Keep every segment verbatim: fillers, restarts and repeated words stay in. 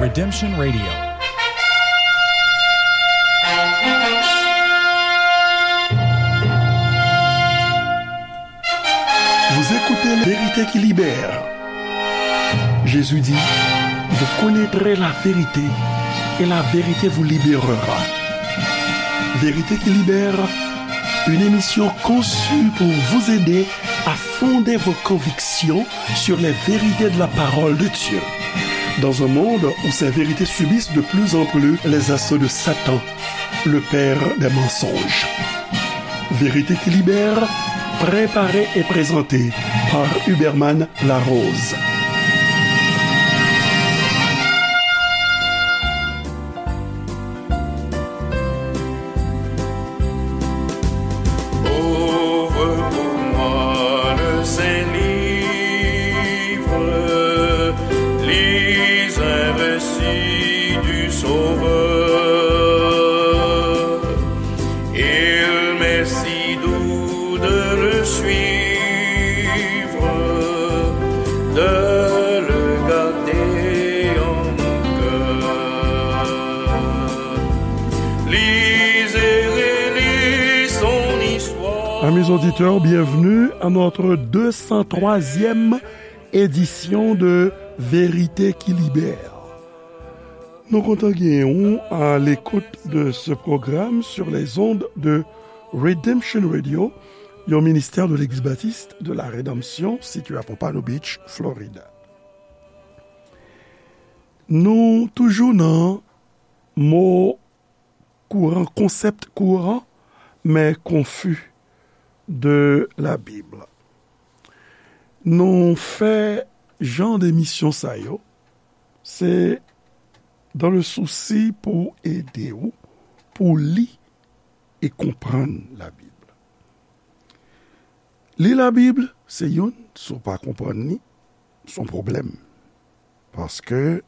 Redemption Radio. Vous écoutez La Vérité qui libère. Jésus dit, vous connaîtrez la vérité et la vérité vous libérera. Vérité qui libère, une émission conçue pour vous aider à fonder vos convictions sur les vérités de la parole de Dieu. Dans un monde où ces vérités subissent de plus en plus les assauts de Satan, le père des mensonges. Vérité qui libère, préparée et présentée par Huberman Larose. Ouvre pour moi le saint livre, lis un récit du Sauveur. Il m'est si doux de le suivre, de le garder en mon cœur. Lis et relis son histoire. Amis auditeurs, bienvenue à notre deux cent troisième édition de Vérité qui libère. Nou kontan genyen w à l'écoute de ce programme sur les ondes de Redemption Radio, yon ministè de Legliz Batis de la Rédemption, sitiye à Pompano Beach, Florida. Nou toujou nan mo kouran, konsèp kouran, men konfi de la Bib. Nou fè jan de emisyon sa yo, se dans le souci pou ede w, pou li e konprann la Bib. Li la Bib, se youn, si w pa konprann li, se yon pwoblèm. Paske,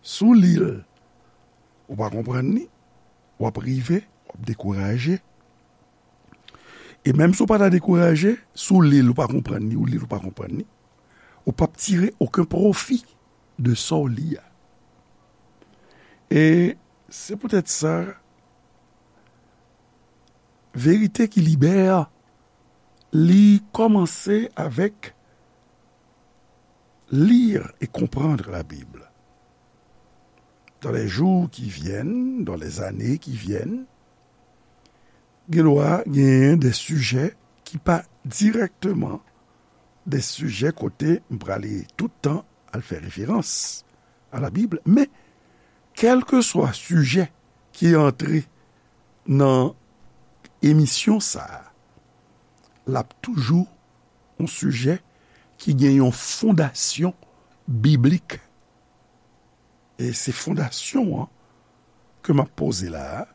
si w li l, ou pa konprann li, w ap rive, w ap dekouraje. E menm si w pa ta dekouraje, si w li l, ou pa konprann li, ou li l, ou pa konprann li, ou p ap tire okenn pwofi de sa w li a. E se poutèt sa, Verite ki libè, li kòmanse avèk lire et comprendre la Bible. Dans les jours qui viennent, dans les années qui viennent, gen dwa genyen de sijè ki pa dirèkteman de sijè kote m prale tout tan al fè referans a la Bib, men kèlkeswa sijè ki antre nan emisyon sa a, l ap toujou yon sijè ki gen yon fondasyon biblik. E se fondasyon an ke m ap poze la a,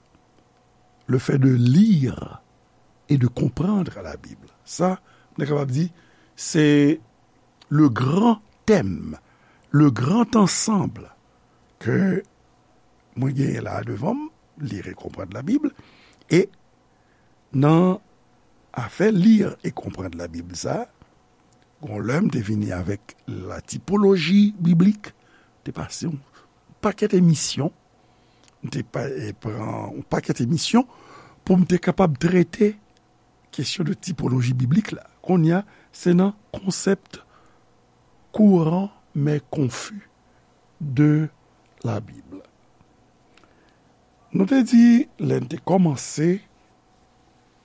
le fait de lire et de comprendre la Bible. Sa, nou kapab di, se le grand thème, le grand ensemble ke mwen genyen la a devan m, lire et comprendre la Bible, e nan afè lire et comprendre la Bible sa, gon lè m te vini avèk la typologie biblique, te pase yon pakèt emisyon, m te pa, e, pran yon pakèt emisyon pou m te kapab trete kesyon de typologie biblique la. Kounye a, se nan konsèp kouran men konfi de la Bible. Nou te di, lè n te kòmanse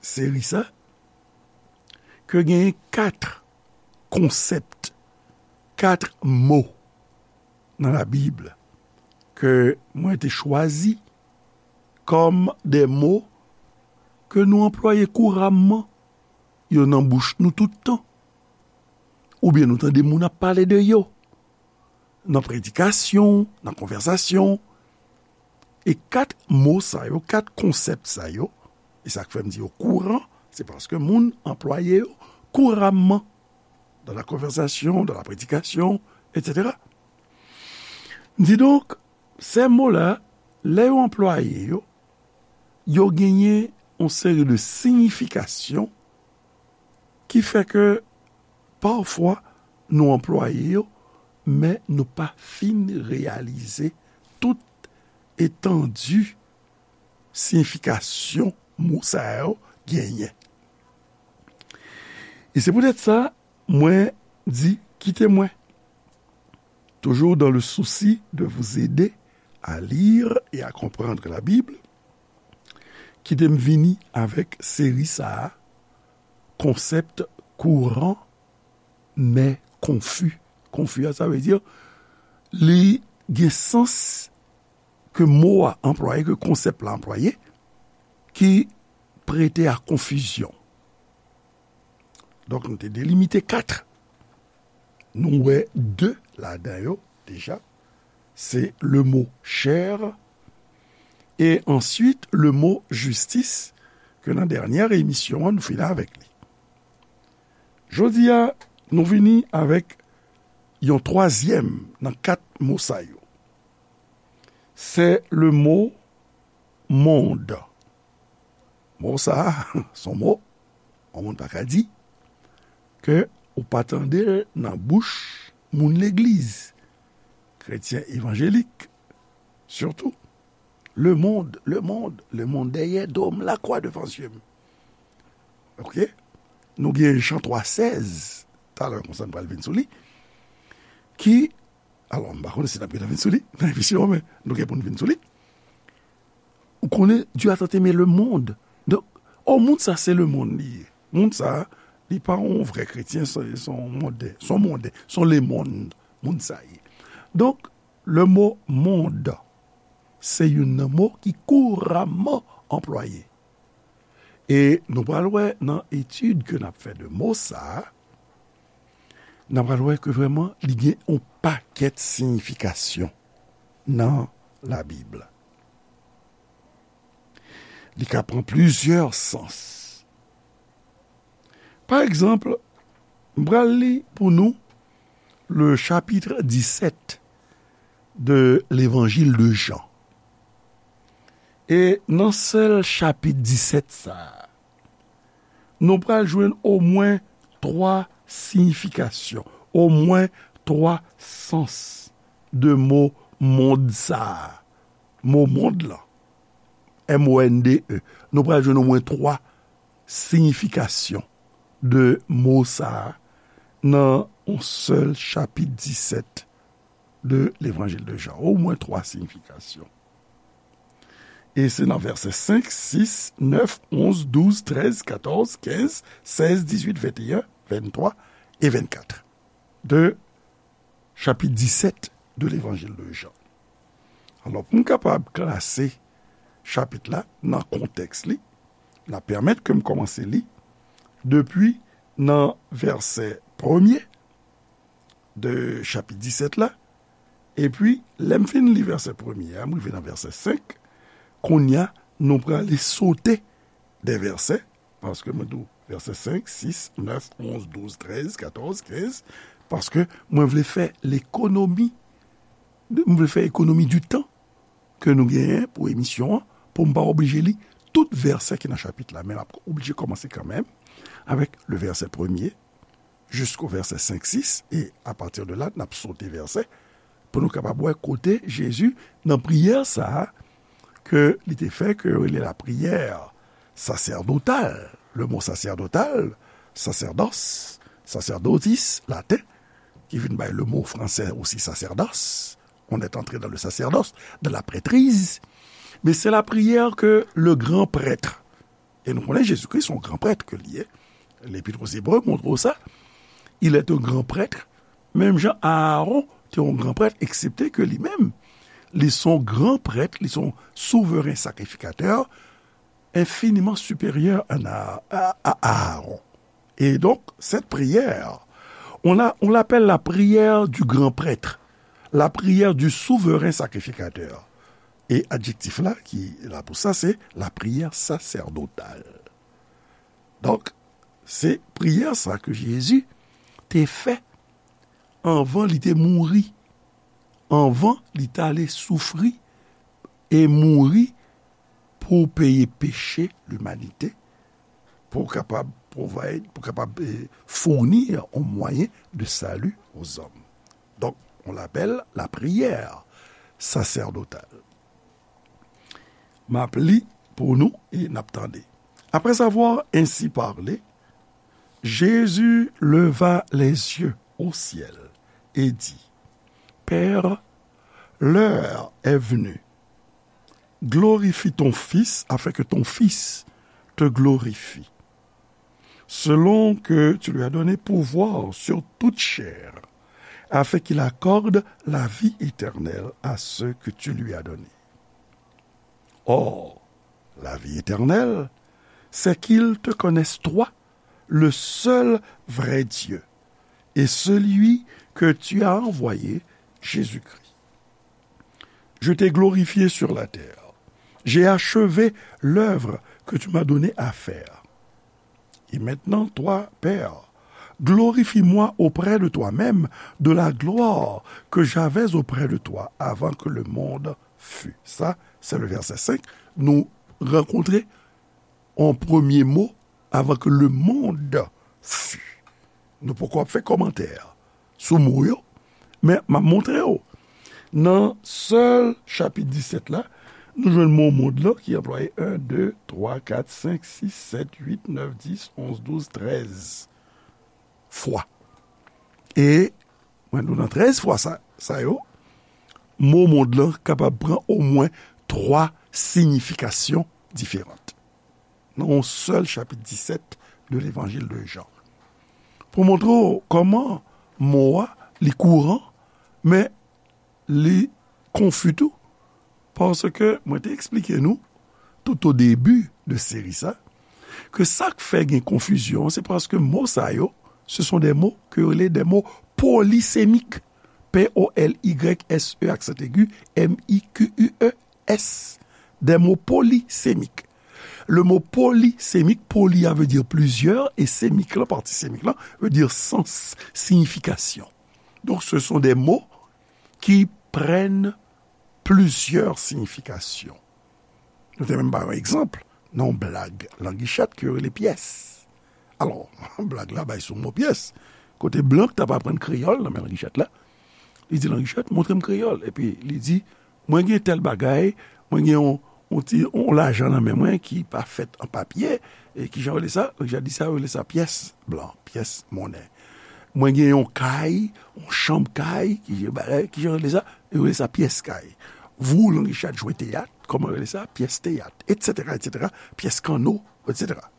seri sa, ke genyen kat konsèp, kat mo nan la Bib ke mwen te chwazi kòm de mo ke nou anplwaye kouramman, yo nan bouch nou tout tan, oubyen nou tande moun ap pale de yo nan predikasyon, nan konvèsasyon. E kat mo sa yo, kat konsèp sa yo, e sa k fè m di yo kouran, se paske moun anplwaye yo kouramman, dans la conversation, dans la prédication, et cetera. Didonk, se mo la, lè yo anplwaye yo, yo genyen yon seri de siyifikasyon ki fè ke pafwa nou anplwaye yo, men nou pa fin reyalize tout etandi siyifikasyon mo sa yo genyen. E se poutèt sa, mwen di, kite mwen, toujours dans le souci de vous aider à lire et à comprendre la Bible, kite m vini avèk seri sa a, concept courant mais confus. Konfi a, sa vle di, li gen sans ke mo a anplwaye, ke konsèp la anplwaye, ki prete a konfizyon. Donk, nou te delimite kat. Nou wè de ladan yo deja. Se le mo chè e answit le mo jistis ke nan dènyè emisyon an nou fini avèk li. Jodi a, nou vini avèk yon twazyèm nan kat mo sa yo. Se le mo mond. Mo sa a, se yon mo yon moun pa ka di ke ou pa tande l nan bouch moun legliz, kretyen evanjelik, sitou. Le monde, le monde, le monde, derrière dôme, la croix devant yeux m. Ok? Nou gen Jan twa sèz, talè konsa n pral vin sou li, ki, alò, m pa konnen si n ap gentan vin sou li nan emisyon an, men nou gen pou n vin sou li. Ou konnen, Dieu a tant aimé le monde. Donk, o, moun sa se le monde li ye. Moun sa, li pa yon vrè kretyen, se se yon monde, se yon monde, se yon lemonn, moun sa ye. Donk, le mo mond, se youn nan mo ki kouramman anplwaye. E nou pral wè nan etid ke n ap fè de mo sa a, n ap pral wè ke vrèman li gen yon pakèt siyifikasyon nan Labib. Li ka pran plizyè sans. Pa egzanp, m pral li pou nou le chapitre dix-sept de l'Évangile de Jean. E nan sèl chapit disèt sa a, nou pral jwenn omwen twa siyifikasyon, omwen twa sans de mo mond sa a. Mo mond lan, M O N D E. Nou pral jwenn omwen twa siyifikasyon de mo sa a nan yon sèl chapit disèt de Levanjil de Jan. Omwen twa siyifikasyon. E se nan vèsè senk, sis, nèf, onz, douz, trèz, katòz, kenz, sèz, dizuit, venteyen, venntwa e vennkat de chapit disèt de Levanjil de Jan. Alò, pou m kapab klase chapit la nan kontèks li, n ap pèmèt ke m kòmanse li depi nan vèsè premye de chapit disèt la, epi lè m fin li vèsè premye a, m rive nan vèsè senk, kounye a, nou prale sote de vèsè, paske mwen di w vèsè senk, sis, nèf, onz, douz, trèz, katòz, kenz, paske mwen vle fè lekonomi, m vle fè ekonomi di tan ke nou genyen pou emisyon an, pou m pa oblije li tout vèsè ki nan chapit la, men m ap oblije kòmanse kanmenm avèk le vèsè premye, jisko vèsè senk, sis, e apati de la, n ap sote vèsè, pou nou kapab wè kote Jezi, nan priyè sa a, ke li te fè, ke yo rele lapriyè sasèdotal. Le mo sasèdotal, sacerdos, sacerdotis, laten, ki vin bay le mo fransè osi sacerdoce. On est entré dans le sacerdoce, dans la prêtrise. Men se lapriyè ke le gran prèt, e nou konnen Jezikri se yon gran prèt ke li ye. Lepit aux Hébreux montre w sa. Il est un grand prêtre. Menm jan Aaron te yon gran prèt, eksepte ke li menm, li se yon gran prèt, li se yon souveren sakrifikatè enfiniman siperyè a, a, a Aaron. Et donc, cette prière, on l'a, on l'appelle la prière du grand prêtre, la prière du souverain sacrificateur. E adjektif la ki la pou sa, se la prière sacerdotale. Donk, se priyè sa ke Jezi te fè anvan li te mouri, anvan li t ale soufri e mouri pou peye peche limanite, pou kapab provide, pou kapab, eh, fournir un moyen de salut aux hommes. Donc, on l'appelle la prière sacerdotal. M ap li pou nou e n ap tande. Après avoir ainsi parlé, Jésus leva les yeux au ciel et dit, Père, l'heure est venue. Glorifie ton Fils afin que ton Fils te glorifie, selon que tu lui as donné pouvoir sur toute chair, afin qu'il accorde la vie éternelle à ceux que tu lui as donnés. Or, la vie éternelle, c'est qu'ils te connaissent toi, le seul vrai Dieu, et celui que tu as envoyé, Jésus-Christ. Je t'ai glorifié sur la terre. J'ai achevé l'œuvre que tu m'as donné à faire. Et maintenant, toi, Père, glorifie-moi auprès de toi-même de la gloire que j'avais auprès de toi avant que le monde fût. Sa, se le vèsè senk. Nou rankontre yon premye mo, avant que le monde fût. Nou poko ap fè kòmantè sou mo yo, men m ap montre w. Nan sèl chapit disèt la, nou jwenn mo mond lan ki anplwaye en, de, twa, kat, senk, sis, sèt, uit, nèf, dis, onz, douz, trèz fwa. E, mwen, nou nan trèz fwa sa, sa yo, mo mond lan kapab pran omwen twa siyifikasyon diferan nan yon sèl chapit disèt de Levanjil de Jan. Pou montre w kòman mo a, li kouran, men li konfi tou, paske mwen te eksplike nou, tout o debi de seri sa, ke sa k fè gen konfizyon, se paske mo sa yo, ce sont des mots que yo rele des mots polysémiques. P O L Y S E, aksan egi, M I Q U E S. Des mots polysémiques. Le mot polysémique, poly a veut dire plusieurs, et sémique la, partie sémique la, veut dire sens, signification. Donc, ce sont des mots qui prennent plusieurs significations. Nou te menm ba yon egzanp nan yon blag Langichèt ke yo rele pyès. Alò, blag la bay sou mo pyès. Kote blan k t ap aprann kreyòl nan men Langichèt la, li di Langichèt, "Montre m kreyòl." Epi li di, "Mwen gen tèl bagay, mwen gen yon, yon ti, yon lajan nan men mwen ki pa fèt an papye, e kijan yo rele sa?" Langichèt di sa, yo rele sa pyès blan, pyès monnen. "Mwen gen yon kay, yon chanm kay, ki, bagay, kijan yo rele sa?" Yo rele sa pyès kay. Vou, Langichèt, jwe teyat, kòman yo rele sa? Pyès teyat, etsetera, etsetera. Pyès kanno, etsetera.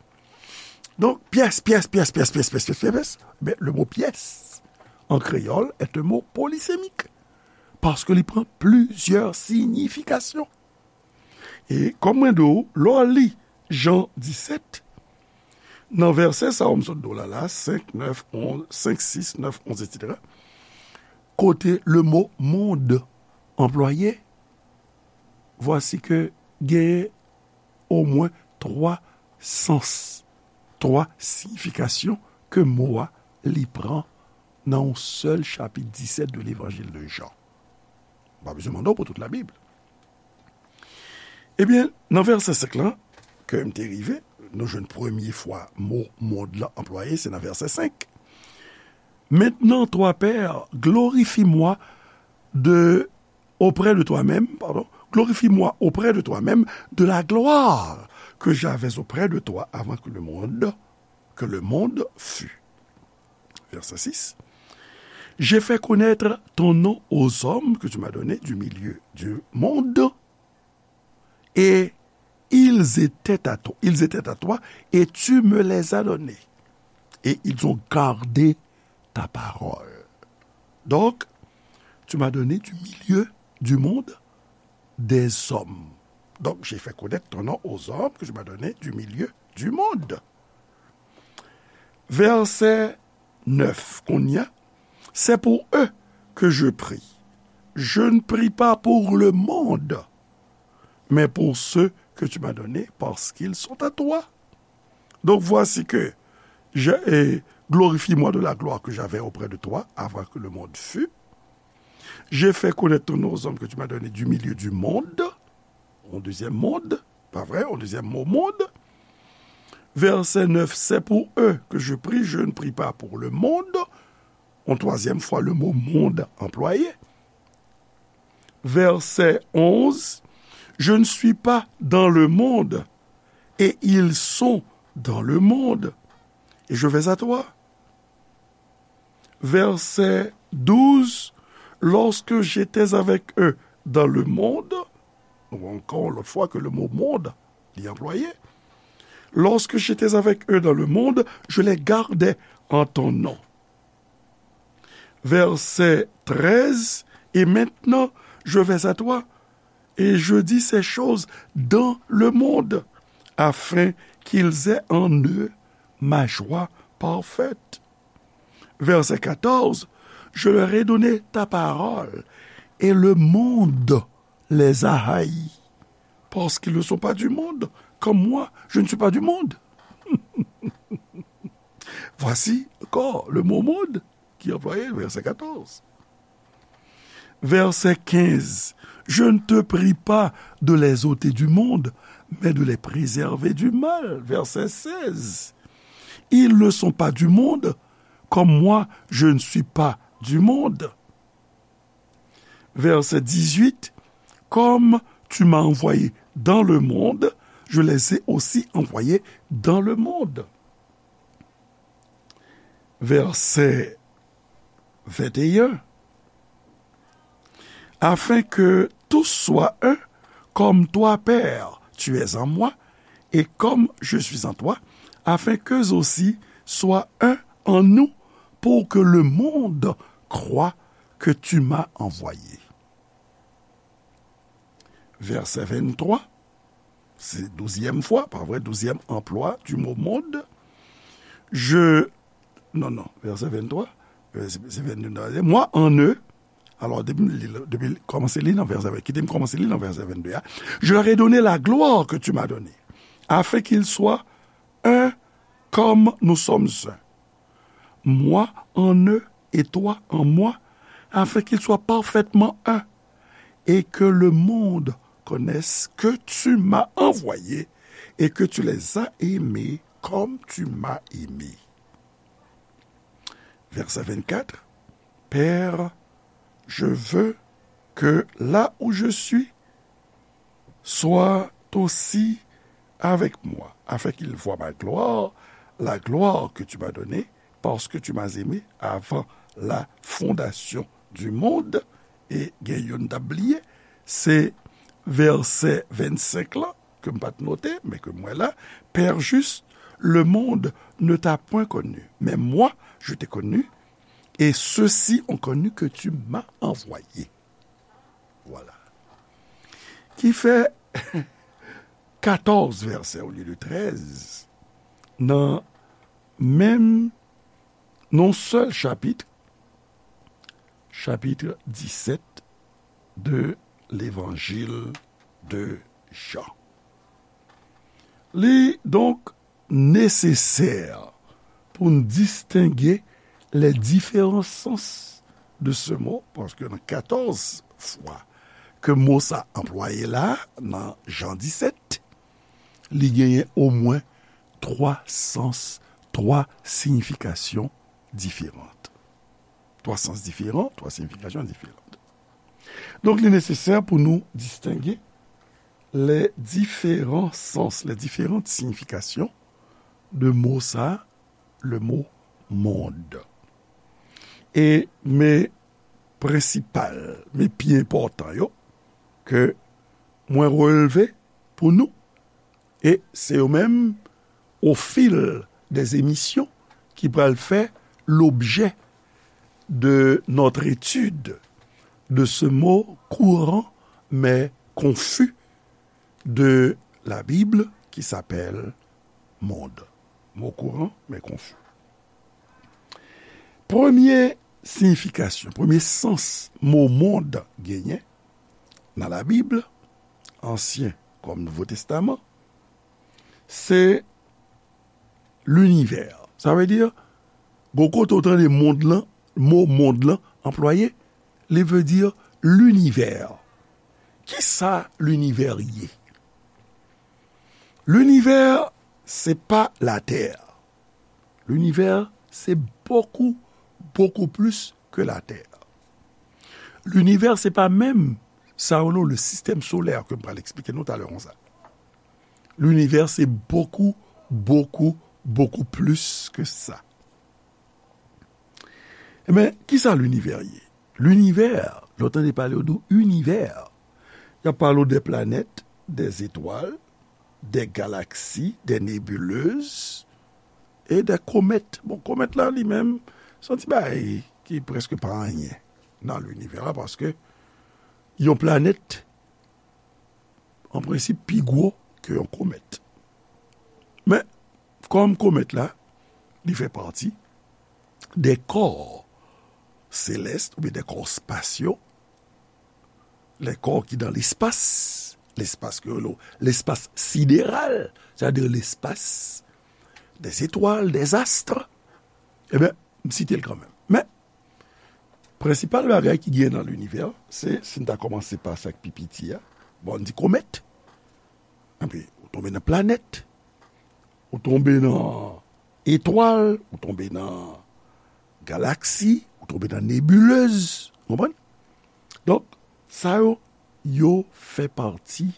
Donk, pyès, pyès, pyès, pyès, pyès, pyès, pyès, pyès, pyès. Ben, le mot pyès, en créole, est un mot polysémique, paske li pran plizyè siyifikasyon. E kòm mwen di w, lè w li Jan disèt, nan vèsè sa yo m sot di w la, la, senk, nèf, onz, senk, sis, nèf, onz, etsetera, kote le mot monde anplwaye, vwasi ke gen omwen twa sans, twa siyifikasyon ke mo a li pran nan yon sèl chapit disèt de Levanjil de Jan. M pa bezwen mande w pou tout Labib. Ebyen, nan vèsè senk lan, ke m te rive, nou jwenn premye fwa mo mond lan anplwaye, se nan vèsè senk. Maintenant, toi, Père, glorifie-moi de, auprès de toi-même, pardon, glorifie-moi auprès de toi-même de la gloire que j'avais auprès de toi avant que le monde, que le monde fût. Verset six. J'ai fait connaître ton nom aux hommes que tu m'as donnés du milieu du monde, et ils étaient à toi, ils étaient à toi, et tu me les as donnés, et ils ont gardé ta parole. Donc, tu m'as donné du milieu du monde des hommes. Donc, j'ai fait connaître ton nom aux hommes que tu m'as donnés du milieu du monde. Verset neuf, kounye a, c'est pour eux que je prie. Je ne prie pas pour le monde, mais pour ceux que tu m'as donnés, parce qu'ils sont à toi. Donc voici que je, et glorifie-moi de la gloire que j'avais auprès de toi avant que le monde fût. J'ai fait connaître ton nom aux hommes que tu m'as donnés du milieu du monde. Yon dezyèm mond, pa vre? Yon dezyèm mo mond. Verset neuf, c'est pour eux que je prie, je ne prie pas pour le monde. Yon twazyèm fwa, le mot monde anplwaye. Verset onze, je ne suis pas dans le monde, et ils sont dans le monde, et je vais à toi. Verset douze, lorsque j'étais avec eux dans le monde, nou wè ankò yon lòt fwa ke le mo monde li anplwaye. Lorsque j'étais avec eux dans le monde, je les gardais en ton nom. Verset treize, et maintenant, je vais à toi, et je dis ces choses dans le monde, afin qu'ils aient en eux ma joie parfaite. Verset quatorze, je leur ai donné ta parole, et le monde les a haïs, parce qu'ils ne sont pas du monde, comme moi, je ne suis pas du monde. Voici encore le mot monde qui est employé, verset quatorze. Verset quinze, je ne te prie pas de les ôter du monde, mais de les préserver du mal. Verset seize, ils ne sont pas du monde, comme moi, je ne suis pas du monde. Verset dix-huit, comme tu m'as envoyé dans le monde, je les ai aussi envoyés dans le monde. Verset vingt et un, afin que tous soient un, comme toi, Père, tu es en moi, et comme je suis en toi, afin qu'eux aussi soient un en nous, pour que le monde croie que tu m'as envoyé. Verset vingt-trois, se douzyèm fwa, pa vre, douzyèm anplwa du mot monde. Je, non, non, verset vingt-trois, euh, se, se vingt-deux, moi en eux, alò, depi m li, depi l kòmanse li nan verset, kite m kòmanse li nan verset vingt-deux a. Je leur ai donné la gloire que tu m'as donnée, afin qu'ils soient un comme nous sommes un. Moi en eux et toi en moi, afin qu'ils soient parfaitement un, et que le monde connaisse que tu m'as envoyé et que tu les as aimés comme tu m'as aimé. Verset vingt-quatre, Père, je veux que là où je suis, soient aussi avec moi, afin qu'ils voient ma gloire, la gloire que tu m'as donnée, parce que tu m'as aimé avant la fondation du monde. E gen youn m t ap bliye, se vèsè vennsenk lan, ke m pa t note, men ke m wè la, Père juste, le monde ne t'a point connu, mais moi, je t'ai connu, et ceux-ci ont connu que tu m'as envoyé. Voilà. Ki fè katòz vèsè olye de trèz nan menm, nan sèl chapit, chapit disèt de Levanjil de Jan. Li donk nesesè pou n distenge les différents sens de ce mot, paske nan katòz fwa ke mo sa anplwaye la, nan Jan disèt, li genyen omwen twa sans, twa siyifikasyon diferan. Twa sans diferan, twa siyifikasyon diferan. Donk, li nesesè pou nou distenge les différents sens, les différentes significations de mo sa, le mot monde. E men prensipal, men pi enpòtan yo, ke mwen releve pou nou, e se yo menm, au fil des émissions, ki pral fè l'objet de notre étude de ce mot courant mais confus de la Bible qui s'appelle monde. Mo kouran, men konfi. Premye siyifikasyon, premye sans mo mond genyen nan Labib, Ansyen kòm Nouvo Testaman, se linivè. Sa vle di, gon kote w tande mond lan, mo mond lan anplwaye, li vle di linivè. Kisa linivè ye? Linivè, se pa latè. Linivè, se bokou, bokou plis ke latè. Linivè, se pa menm sa yo rele le système solaire ke m pral eksplike nou talè konsa. Linivè se bokou, bokou, bokou plis ke sa. Ebyen, kisa linivè ye? Linivè, lè w tande pale yo di w inivè, y ap pale w de planèt, de zetwal, de galaksi, de nebilez e de komèt. Bon, komèt la li menm, se yon ti bagay ki prèske pa anyen nan linivè la, paske yon planèt, an prensip, pi gwo ke yon komèt. Men, kòm komèt la, li fè pati de kò selès oubyen de kò spasyo, le kò ki nan lespas, lespas ke yo rele w lespas sideral, sètadi lespas de zetwal, de zast, ebyen, m site l kanmenm. Men, prensipal bagay ki genyen nan linivè, se, si n ta kòmanse pa sa k pi piti a, bon, n di komèt, epi ou tonbe nan planèt, ou tonbe nan etwal, ou tonbe nan galaksi, ou tonbe nan nebilez, w konprann? Donk, sa yo, yo fè pati,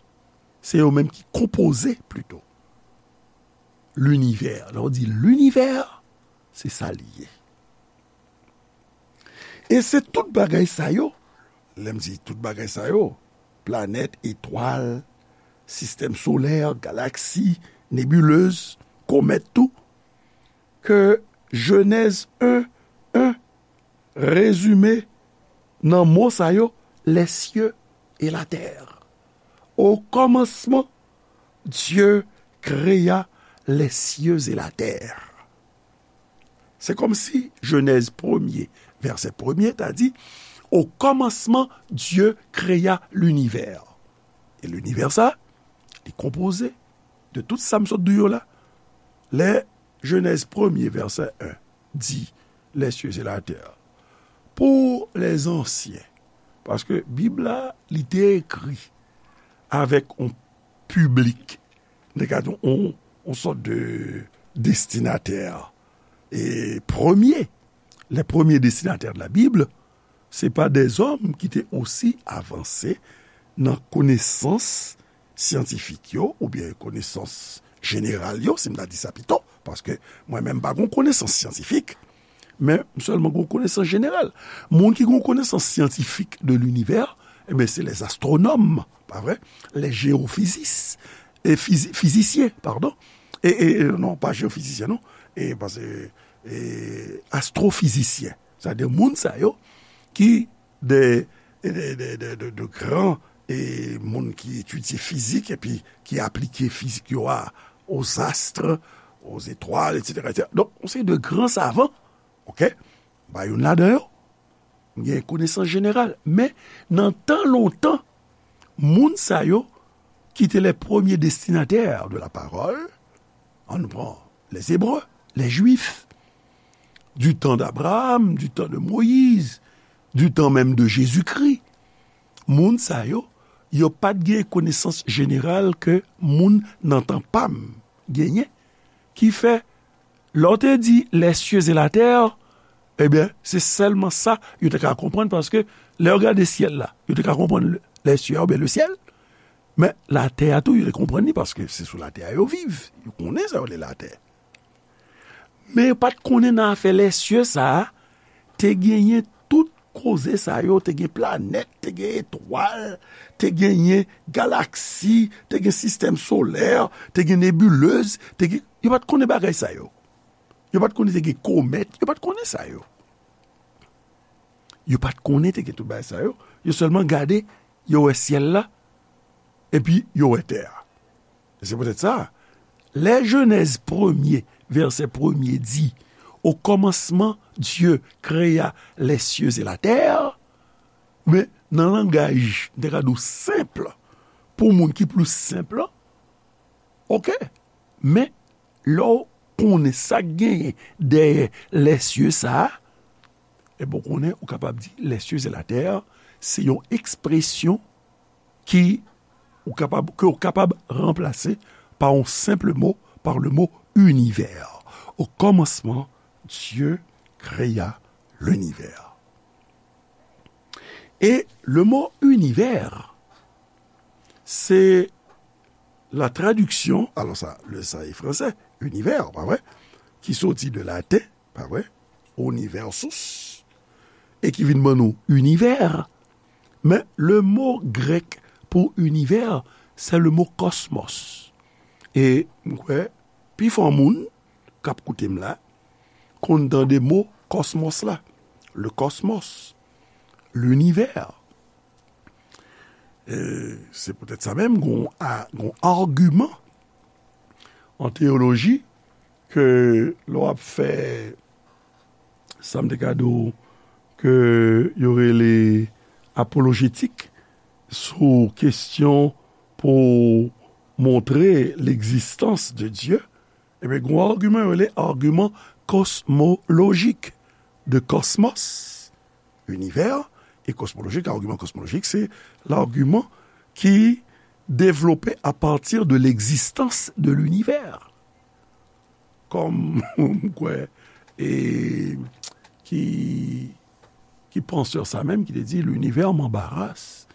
se yo menm ki konpoze, plito, linivè. Lè w di linivè, se sa li ye. E se tout bagay sa yo, lè m di tout bagay sa yo, planèt, etwal, sistèm solè, galaksi, nebilez, komèt tou, ke Jenèz en, en rezime nan mo sa yo, les cieux et la terre. Au commencement, Dieu créa les cieux et la terre. Se kòmsi Jenèz premye, vèsè premye, ta di, au commencement, Dieu créa l'univers. E linivè sa, li konpoze de tout sa m sot di w yo la. Lè Jenèz premye, vèsè en, di, les cieux et la terre. Pou les anciens, paske Bib la, li te ekri avèk yon piblik, nou ka di yon, yon sòt de destinatè, e premye, les premiers destinataires de la Bible, se pa dèzòm ki te osi avanse nan konesans syantifik yo, oubyen konesans jeneral yo, si m ta di sa pito, paske mwen menm m pa gon konesans syantifik, men m sèlman gon konesans jeneral. Moun ki gon konesans syantifik de linivè, ebyen, se les astronomes, pa vre? Les géophysistes, e fizi-, fizisyen, padon. E, e, e, non, pa jeyofizisyen, non. E, paske, e, astrofizisyen. Sètadi moun sa yo ki de, de, de, de, de, de gran, e, moun ki etidye fizik epi ki aplike fizik yo a, aux astres, aux étoiles, et cetera, et cetera. Donk, yon seri de gran savan, oke, ba youn ladan yo, gen konesans jeneral. Men, nan tan lontan, moun sa yo ki te les premiers destinataires de la parole, ann pran les Hébreux, les Juifs, du temps d'Abraham, du temps de Moïse, du temps même de Jésus-Christ. Moun sa yo, yo pa t gen konesans jeneral ke moun nan tan pa m genyen, ki fè, lè w te di les cieux et la terre, ebyen, se sèlman sa yo te ka konprann, paske lè yo gade syèl la, yo te ka konprann le, les cieux oubyen le ciel, men latè a tou, yo te konprann li, paske se sou latè a yo viv. Yo konnen sa yo rele latè. Men yo pa t konnen nan afè les cieux sa a, te genyen tout koze sa yo, te gen planèt, te gen etwal, te genyen galaksi, te gen sistèm solè, te gen nebilez, te gen, yo pa t konnen bagay sa yo. Yo pa t konnen te gen komèt, yo pa t konnen sa yo. Yo pa t konnen te gen tout bagay sa yo. Yo sèlman gade, yo wè syèl la, epi yo wè tè a. E se poutèt sa, lè Jenèz premye, vèsè premye di, au commencement, Dieu créa les cieux et la terre, men nan langaj, m te ka di w senp, pou moun ki plis senp, oke, men lè w konnen sa k genyen dèyè les cieux sa a, ebyen, w konnen, ou kapab di les cieux et la terre, se yon ekspresyon ki ou kapab, ke w kapab ranplase pa yon senp mo, par le mot univers. Au commencement, Dieu créa l'univers. E le mot univers, se la tradiksyon, alò sa, le sa e fransè, univers, pa vre, ki soti de laten, pa vre, universus, e ki vin ban nou univers. Men le mo grèk pou univers, c'est le mot cosmos. E m kwè, pifò moun k ap koute m la, konn tande mo kòsmòs la. Le cosmos, l'univers. E se poutèt sa menm, gon a-, gon agiman an teyoloji ke lè w ap fè sa m te ka di w ke yo rele apolojetik sou kesyon pou montre legzistans de Dye, ebyen, gen yon agiman yo rele agiman kosmolojik de kosmos, univers, e kosmolojik, agiman kosmolojik, se lagiman ki devlope à partir de l'existence de l'univers. Kòm m kwè, e, ki, ki pansè sa menm ki te di, l'univers m'embarrasse,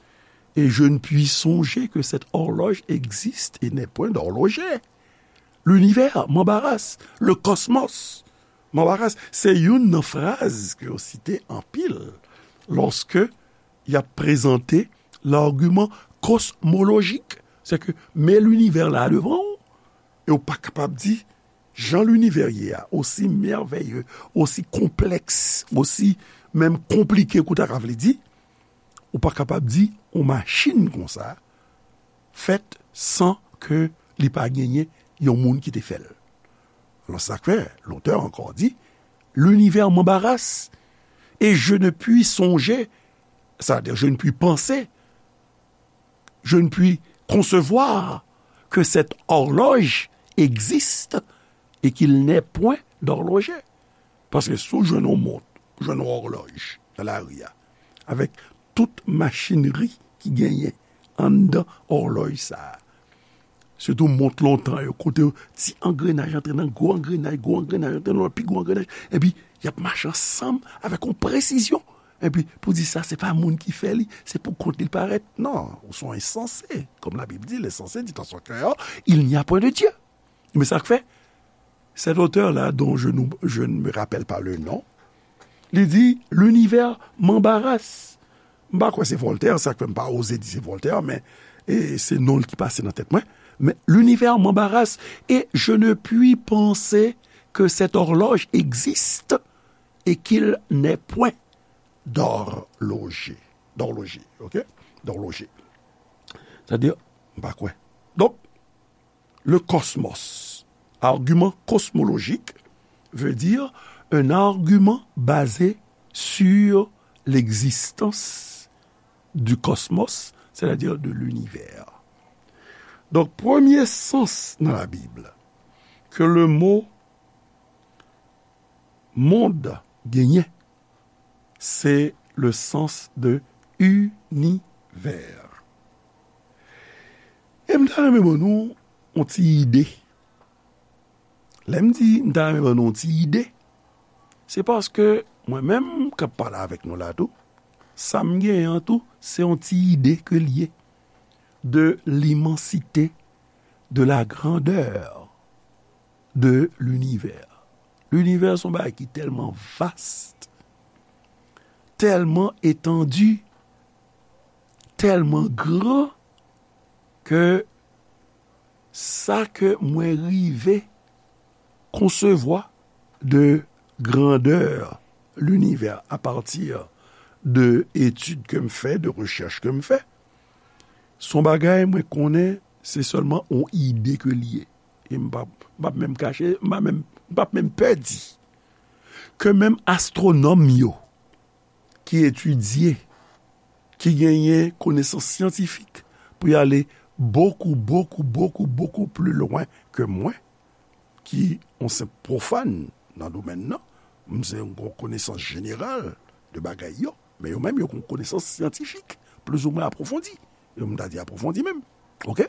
et je ne puis songer que cette horloge existe et n'est point d'horloger. L'univers m'embarrasse, le cosmos m'embarrasse. Se youn nan fraz ke yo site anpil lòske y ap prezante lagiman kosmolojik. Se ke men linivè la devan w, e w pa kapab di jan linivè ye a, osi mèveye, osi konplèks, osi menm konplike ke w ta ka vle di, ou pa kapab di yon machin konsa fèt san ke li pa genyen yon moun ki te fè l. Alò, sa k fè, l'auteur encore dit, l'univers m'embarrasse et je ne puis songer, c'est-à-dire je ne puis penser, je ne puis concevoir que cette horloge existe et qu'il n'est point d'horloger. Paske si w jwenn yon mont, w jwenn yon òlòj nan lari a, avèk tout machinri ki genyen anndan òlòj sa a, sitou mont lontan yo, kote ti angrenaj antre nan gwo angrenaj, gwo angrenaj antre nan lòt pi gwo angrenaj, epi y ap mache ansanm avèk yon presizyon. Epi pou di sa, se pa moun ki fè li, se pou kont li l parèt. Non, ou se yon ensanse. Comme la Bible dit, l'insensé dit en son cœur, il n'y a point de Dieu. Men sa k fè, cet auteur-là, dont je, nous, je ne me rappelle pas le nom, li di, l'univers m'embarrasse. M pa kwè se Voltaire, sa k fè m pa oze di se Voltaire, men e, se non l ki pase nan tèt mwen. Mais l'univers m'embarrasse et je ne puis penser que cette horloge existe et qu'il n'est point d'horloger. D'horloger, ok? D'horloger. C'est-à-dire, m pa kwè. Donk, le cosmos, argument cosmologique, veut dire un argument basé sur l'existence du cosmos, c'est-à-dire de l'univers. Donk, premye sans nan Labib ke le mo mond genyen, se le sens de univers. E m ta renmen ban nou yon ti ide. Lè m di m ta renmen ban nou yon ti ide, se paske mwen menm k ap pale avèk nou la tou, sa m genyen an tou, se yon ti ide ke l ye de l'immensité, de la grandeur de l'univers. Linivè se yon bagay ki tèlman vast, tèlman etandi, tèlman gran ke sa ke mwen rive konsevwa de grandè linivè apati de etid ke m fè, de rechèch ke m fè, se yon bagay mwen konnen se sèlman yon ide ke l ye. E m p ap, m p ap menm kache, m p ap menm, m p ap menm pè di ke menm astwonòm yo ki etidye, ki genyen konesans syantifik pou y ale beaucoup, beaucoup, beaucoup, beaucoup plus loin ke mwen, ki yon senp pwofàn nan domèn nan, m se yon konesans jeneral de bagay yo, men yo menm yo gen yon konesans syantifik plizoumwen apwofondi. Yo, m ta di apwofondi menm. Oke?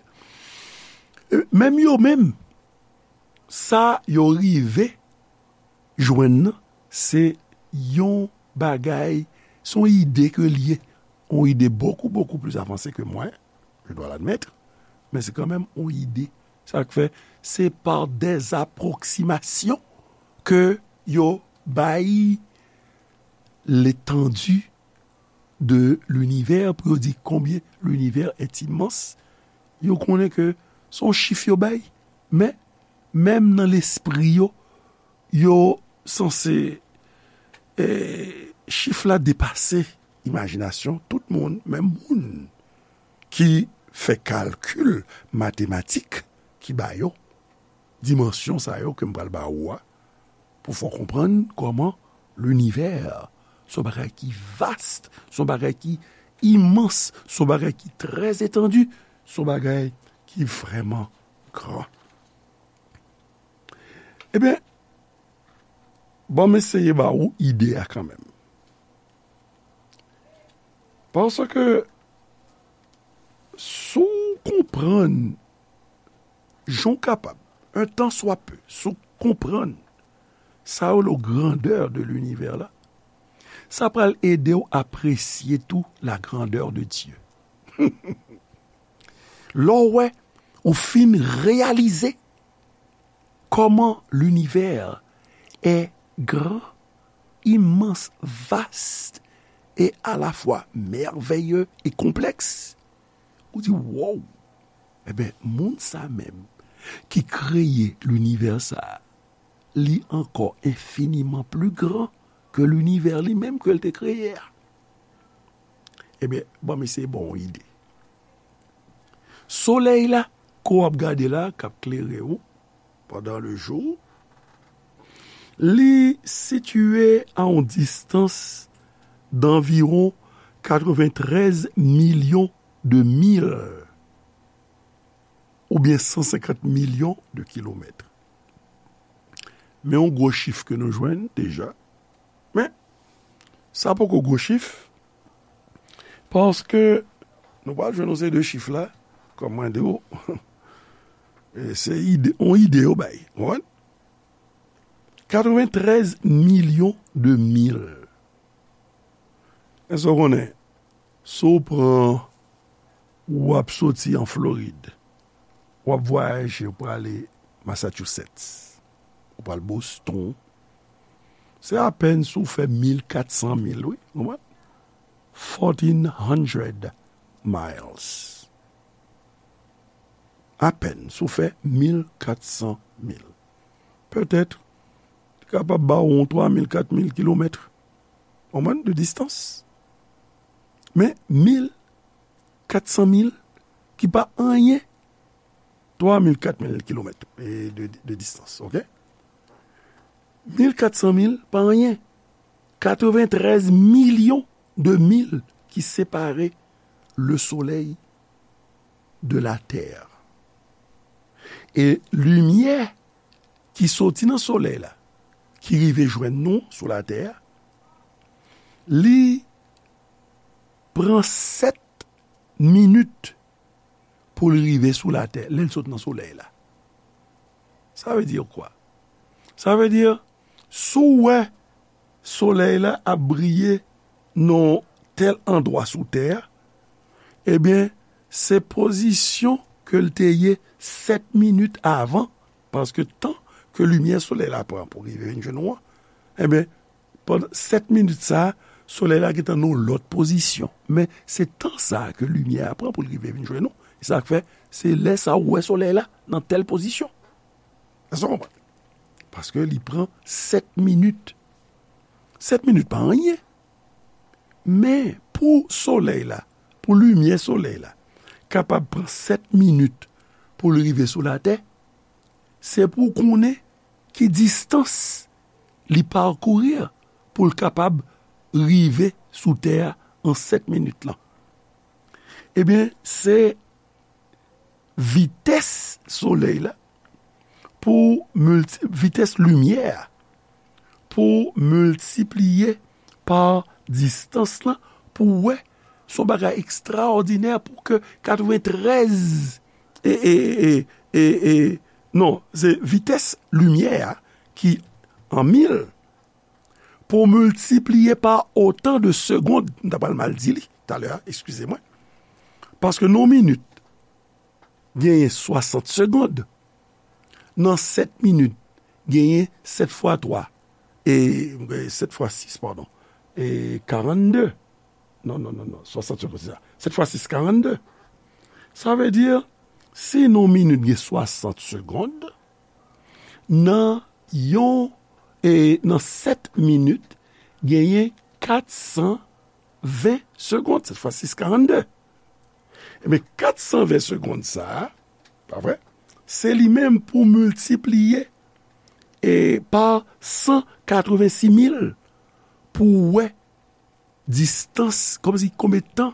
E menm yo menm, sa yo rive jwenn nan, se yon bagay, se yon ide ke l ye, yon ide beaucoup, beaucoup plus avancé que moi, je dois l'admettre. Men se kanmenm yon ide. Sa k fè, se par des approximations ke yo bay l'étendue de l'univers, pou yo di konbyen l'univers est immense. Yo konnen ke se yon chif yo bay, men menm nan lespri yo, yo sanse, eh, chif la depase imajinasyon tout moun, menm moun ki fè kalkil matematik ki ba yo dimansyon sa yo ke m pral ba ou a, pou fè w konprann kòman linivè se yon bagay ki vast, se yon bagay ki imans, se yon bagay ki trè etandi, se yon bagay ki vrèman gran. Ebyen, ban m eseye ba ou ide a kanmenm. Paske si w konprann jan w kapab, un tant soit peu, si w konprann sa yo le grandeur de l'univers la, sa pral ede w apresye tou la grandeur de Dieu. Lè w wè, ou fin reyalize kòman l'univers est grand, immense, vaste et à la fois merveilleux et complexe. Ou di, wow! Ebyen, moun sa menm ki kreye linivè sa a, li ankò enfiniman pli gran ke linivè li menm ke l te kreye a. Ebyen, ban m eseye ba w yon ide. Solèy la, ke w ap gade la, k ap klere w pandan le jou, li sitiye a yon distans d'anviwon katrevenntrèz milyon de mil oubyen san senkant milyon de kilomèt. Men yon gwo chif ke nou jwenn deja. Men, sa poko gwo chif, paske nou pral jwenn yon seri de chif la, kòm mwen di w, e se ide, yon ide yo bay. Ou konprann? Katrevenntrèz milyon de mil. Èske w konnen, si w pran, w ap soti an Florid, w ap vwayaje, w prale Massachusetts, w pral Boston, se apèn si w fè mil kat san mil, wi, w konprann? Fourteen hundred miles. Apèn si w fè mil kat san mil. Petèt, li kapab ba w yon twa mil, kat mil kilomèt, w konprann, de distans. Men, mil kat san mil, ki pa anyen, twa mil, kat mil kilomèt, e, de, de distans, oke? Mil kat san mil pa anyen. Katrevenntrèz milyon de mil ki separe le Soleil de la Terre. E limyè ki soti nan Solèy la, ki rive jwenn nou sou Latè a, li pran sèt minit pou l rive sou Latè, lè l sot nan Solèy la. Sa vle di kwa? Sa vle di, si w wè Solèy la ap briye nan tèl andwa sou Tè a, ebyen, se pozisyon ke l te ye sèt minit avan, paske tan ke limyè Solèy la pran pou rive vin jwenn ou an, ebyen, pandan sèt minit sa a, Solèy la gentan nan yon lòt pozisyon. Men se tan sa a ke limyè a pran pou l rive vin jwenn nou. E sa k fè, se lè sa a ou wè Solèy la nan tèl pozisyon. Èske w konprann? Paske li pran sèt minit. Sèt minit pa anyen. Men pou Solèy la, pou limyè Solèy la, kapab pran sèt minit pou l rive sou Latè, se pou w konnen ki distans li pakouri pou l kapab rive sou Tè a an sèt minit lan. Ebyen, se vitès Solèy la pou milti-, vitès limyè a pou miltipliye pa distans lan, pou w wè, se yon bagay ekstraòdinè pou ke katrevenntrèz, e, e, e, e, e, non, se vitès limyè a ki an mil, pou miltipliye pa otan de segond, m ta pral mal di li talè a, eskize mwen, paske nan yon minit, genyen swasant segond. Nan sèt minit, genyen sèt fwa twa, e, e, sèt fwa sis, padon, e karannde. Non, non, non, non, swasant segond, se sa. Sèt fwa sis, karannde. Sa vle di, si nan minit gen swasant segond, nan yon, e, nan sèt minit, genyen kat san ven segond, sèt fwa sis, karannde. Ebyen, kat san ven segond sa a, pa vre? Se li menm pou miltipliye, e, pa san katrevensis mil pou w wè distans, kòmsi konbyen tan,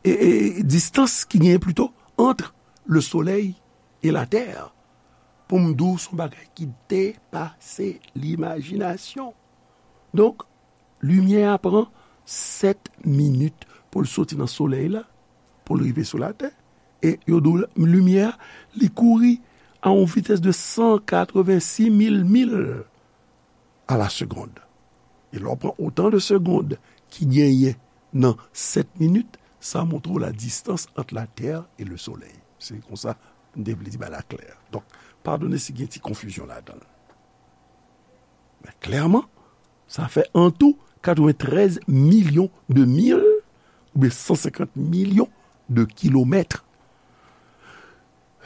e, e, distans ki genyen plito ant le solèy e latè, pou m di w se yon bagay ki depase limajinasyon. Donk, limyè a pran sèt minit pou l soti nan solèy la, pou l rive sou latè. E yo di w limyè a, li kouri a yon vitès de san katrevensis mil mil a la segond. E lè w pran otan de segond ki genyen nan sèt minit, sa montre w la distans ant latè e le solèy. Se konsa m te vle di bagay la klè. Donk, padone si gen ti konfizyon ladan l. Men klèman, sa fè an tou katreventrèz milyon de mil oubyen san senkant milyon de kilomèt.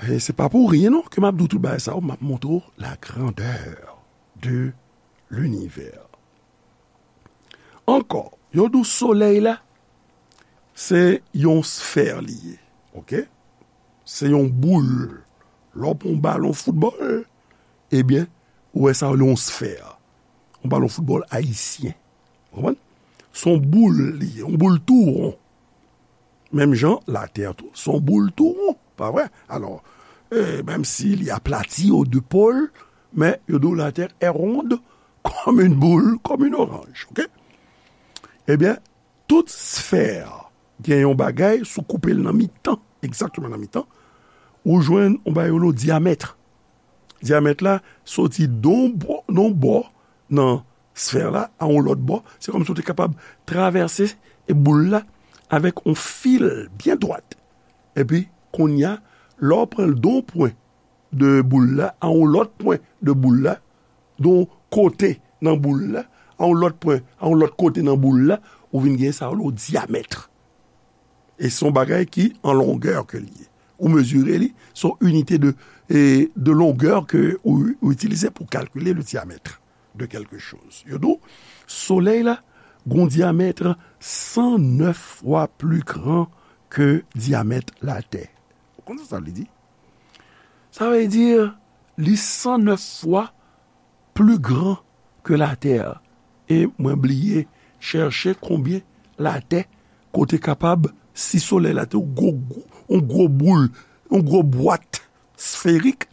E se pa pou ryen non ke m ap di w tout bagay sa yo, m ap montre w la grandeur de l'univers. Ankò, yo di w solèy la, se yon sfè li ye, oke? Se yon boul. Lè w pran yon balon foutbòl, ebyen, ou wè sa yo rele yon sfè. Yon balon foutbòl ayisyen. Ou konprann? Se yon boul li ye, yon boul tou won. Menm jan, latè tou, se yon boul tou won, pa vre? Alò, e, menm si li aplati aux deux pôles, men yo di w la Terre est ronde comme une boule, comme une orange, oke? Ebyen, tout sfè gen yon bagay, si w koupe l nan mitan, egzakteman nan mitan, ou jwenn yon bagay yo rele dyamèt. Dyamèt la soti nan yon bò, nan yon bò nan sfè la a yon lòt bò. Se kòmsi w te kapab travèse boul la avèk yon fil byen dwat. Epi, kounye a, lè w pran l de yon pwen de boul la a yon lòt pwen de boul la, de yon kote nan boul la, a yon lòt pwen, a yon lòt kote nan boul la, ou vin gen sa yo rele dyamèt. E se yon bagay ki an longè ke li ye. Ou mezire li, se yon inite de, e, de longè ke ou, ou itilize pou kalkile le diamètre de quelque chose. Yo di w, solèy la gon dyamèt san nèf fwa pli gran ke dyamèt latè. Ou konn sa sa vle di? Sa vle di, li san nèf fwa pli gran ke latè. E mwen bliye chèche konbyen latè kote kapab, si solèy la te yon gwo, gwo, yon gwo boul, yon gwo bwat sferik,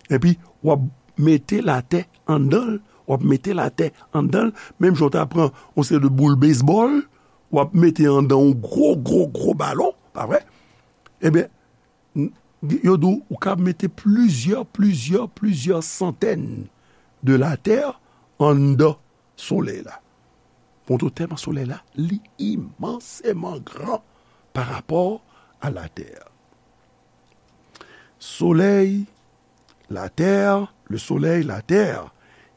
epi w ap mete latè anndan l, w ap mete latè anndan l, menm jan w ta pran yon seri de boul bezbòl, w ap mete anndan yon gwo, gwo, gwo balon, pa vre? Ebyen, n-, yo di w, ou ka mete plizyè, plizyè, plizyè santèn de latè anndan solèy la. Montre w tèlman solèy la, li imanseman gran pa rapò a latè. Solèy, latè, le solèy, latè,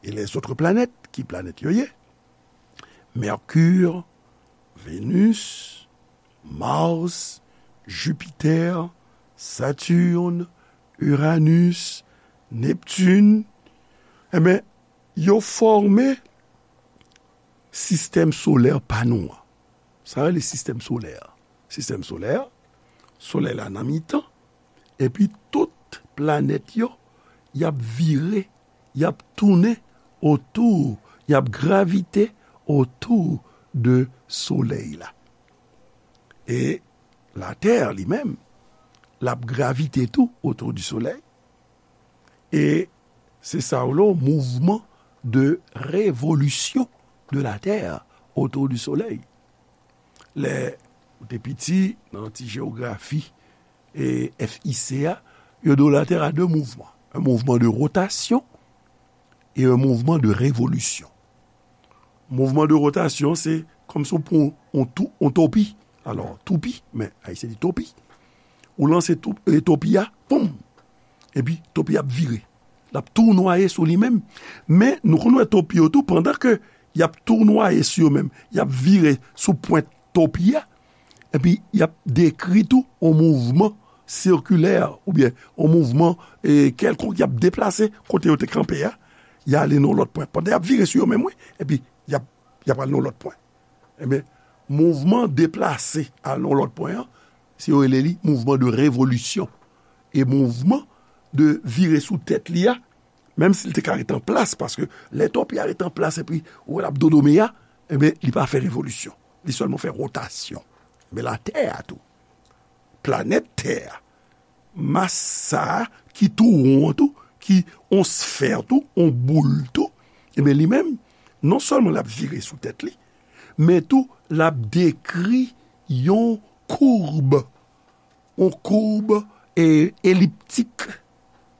e lèzòt planèt, ki planèt yo ye? Mercure, Vénus, Mars, Jupiter, Saturne, Uranus, Neptune, enben, yo fòme sistèm solè pa nou an. Sa rele sistèm solè. Sistèm solè, solèy la nan mitan, epi tout planèt yo, y ap vire, y ap tounen otou, y ap gravite otou de solèy la. E latè li menm, l ap gravite tou otou di solèy. E se sa yo rele mouvman de révolution de la Terre autour du soleil. Lè ou te piti, nan ti jewografi e F I C a, yo di w la Terre a de mouvman. Un mouvement de rotation et un mouvement de révolution. Mouvman de rotasyon, se kòmsi w pran yon tou-, yon topi. Alò, toupi, men Ayisyen di topi. Ou lanse tou- e, topi a, poum! Epi topi a ap vire. L ap tounwaye sou li menm. Men, nou konn wè topi yo tou, pandan ke y ap tounwaye sou yo menm, y ap vire sou pwent topi a, epi y ap dekri tou yon mouvman sikilè, oubyen yon mouvman, e, kèlkonk, y ap deplase kote yo te kanpe a, y ale nan yon lòt pwen. Pandan y ap vire sou yo menm, wi, epi y ap, y ap al nan yon lòt pwen. Ebyen, mouvman deplase al nan yon lòt pwen an, se yo rele li mouvman de revolisyon. E mouvman de vire sou tèt li a, menm si l te ka ret an plas, paske lè topi a ret an plas epi ou wè l ap dodome a, ebyen, li pa fè revolisyon. Li sèlman fè wotasyon. Ebyen, Latè a tou, planèt Tè a, mas sa a ki tou won an tou, ki yon sfè tou, yon boul tou, ebyen, li menm, non sèlman l ap vire sou tèt li, men tou, l ap dekri yon koub, yon koub, e, eliptik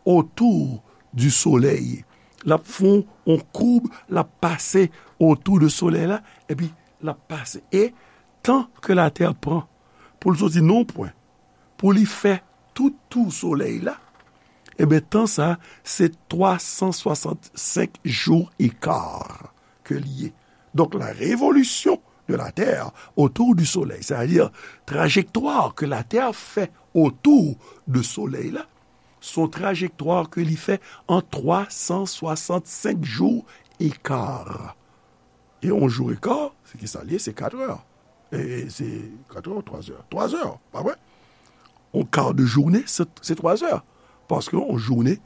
otou di Solèy. L ap fè yon, yon koub, l ap pase otou de Solèy la, epi l ap pase. E tan ke Latè pran pou l soti nan yon pwen, pou li fè tout tou Solèy la, ebyen, tan sa, se twa san swasannsenk jou e ka ke li ye. Donk, la révolution de la Terre autour du Soleil, c'est-à-dire trajektwa ke Latè fè otou de Solèy la, se yon trajektwa ke li fè an twa san swasannsenk jou e ka. E yon jou e ka, se ki sa l ye? Se kat è. E se kat è, twa è, twa è, pa vre? Yon ka de jounen, se, se twa è. Paske yon jounen,